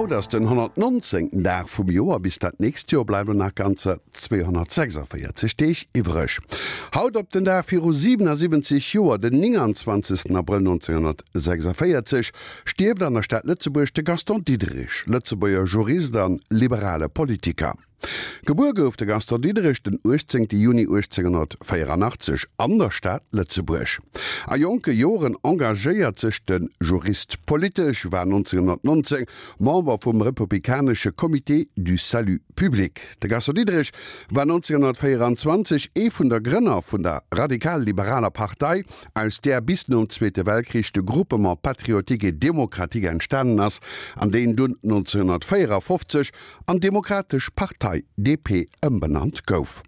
Haut ass den 119. Dag vum Joer, bis dat nächst Joer bleiwen nach ganzer 246 Deeg iwwreg. Haut op den Dag viru 77 Joer, den 29. Abrëll 1946, stierft an der Stad Lëtzebuerg de Gaston Diderich, Lëtzebuerger Jurist an liberale Politiker. Gebuer gouf de Gaston Diderich den 18 Juni 1884 an der Stad Lëtzebuerg. A jonke Joren engagéiert sech de Jurist politesch, war 1919 Member vum republikanesche Comité du Salut public. De Gaston Diderich war 1924 ee vun der Grënner vun der radikal-liberaler Partei, aus där bis nom Zweete Weltkrich de Groupement patriotique et démocratique entstanen ass an deen dunn 1954 an Demokratesch Partei, DP, ëmbenannt gouf.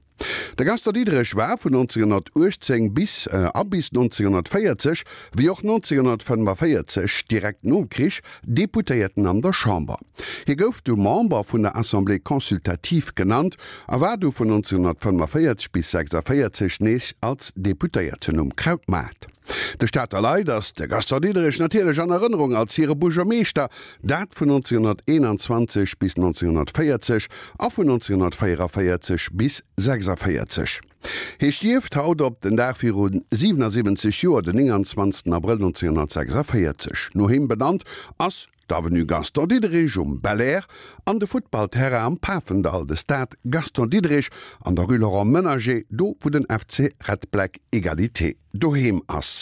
De Gaston Diderich war vun 1918 bis a bis 1940, wéi och 1945, direkt nom Krich, Deputéierten an der Chamber. Hie gouf du Member vun der Assemblée consultative genannt a war du vun 1945 bis 46 nees als Deputéierten um Krautmaart. De Stater Leit ass de Gaston Diderich natierlech an Erënnerung als hire Buergermeeschter, dat vun 1921 bis 1940 a vun 1944 bis 46. Hie stierft haut op den Dag viru 77 Joer, den 29 Abrëll 1946. No him benannt ass d'Avenue Gaston Diderich um Belair an de Futtballterrain am Pafendall, de Stade Gaston Diderich an der Rue Laurent Menager, do wou den FC Red Black Egalité doheem ass.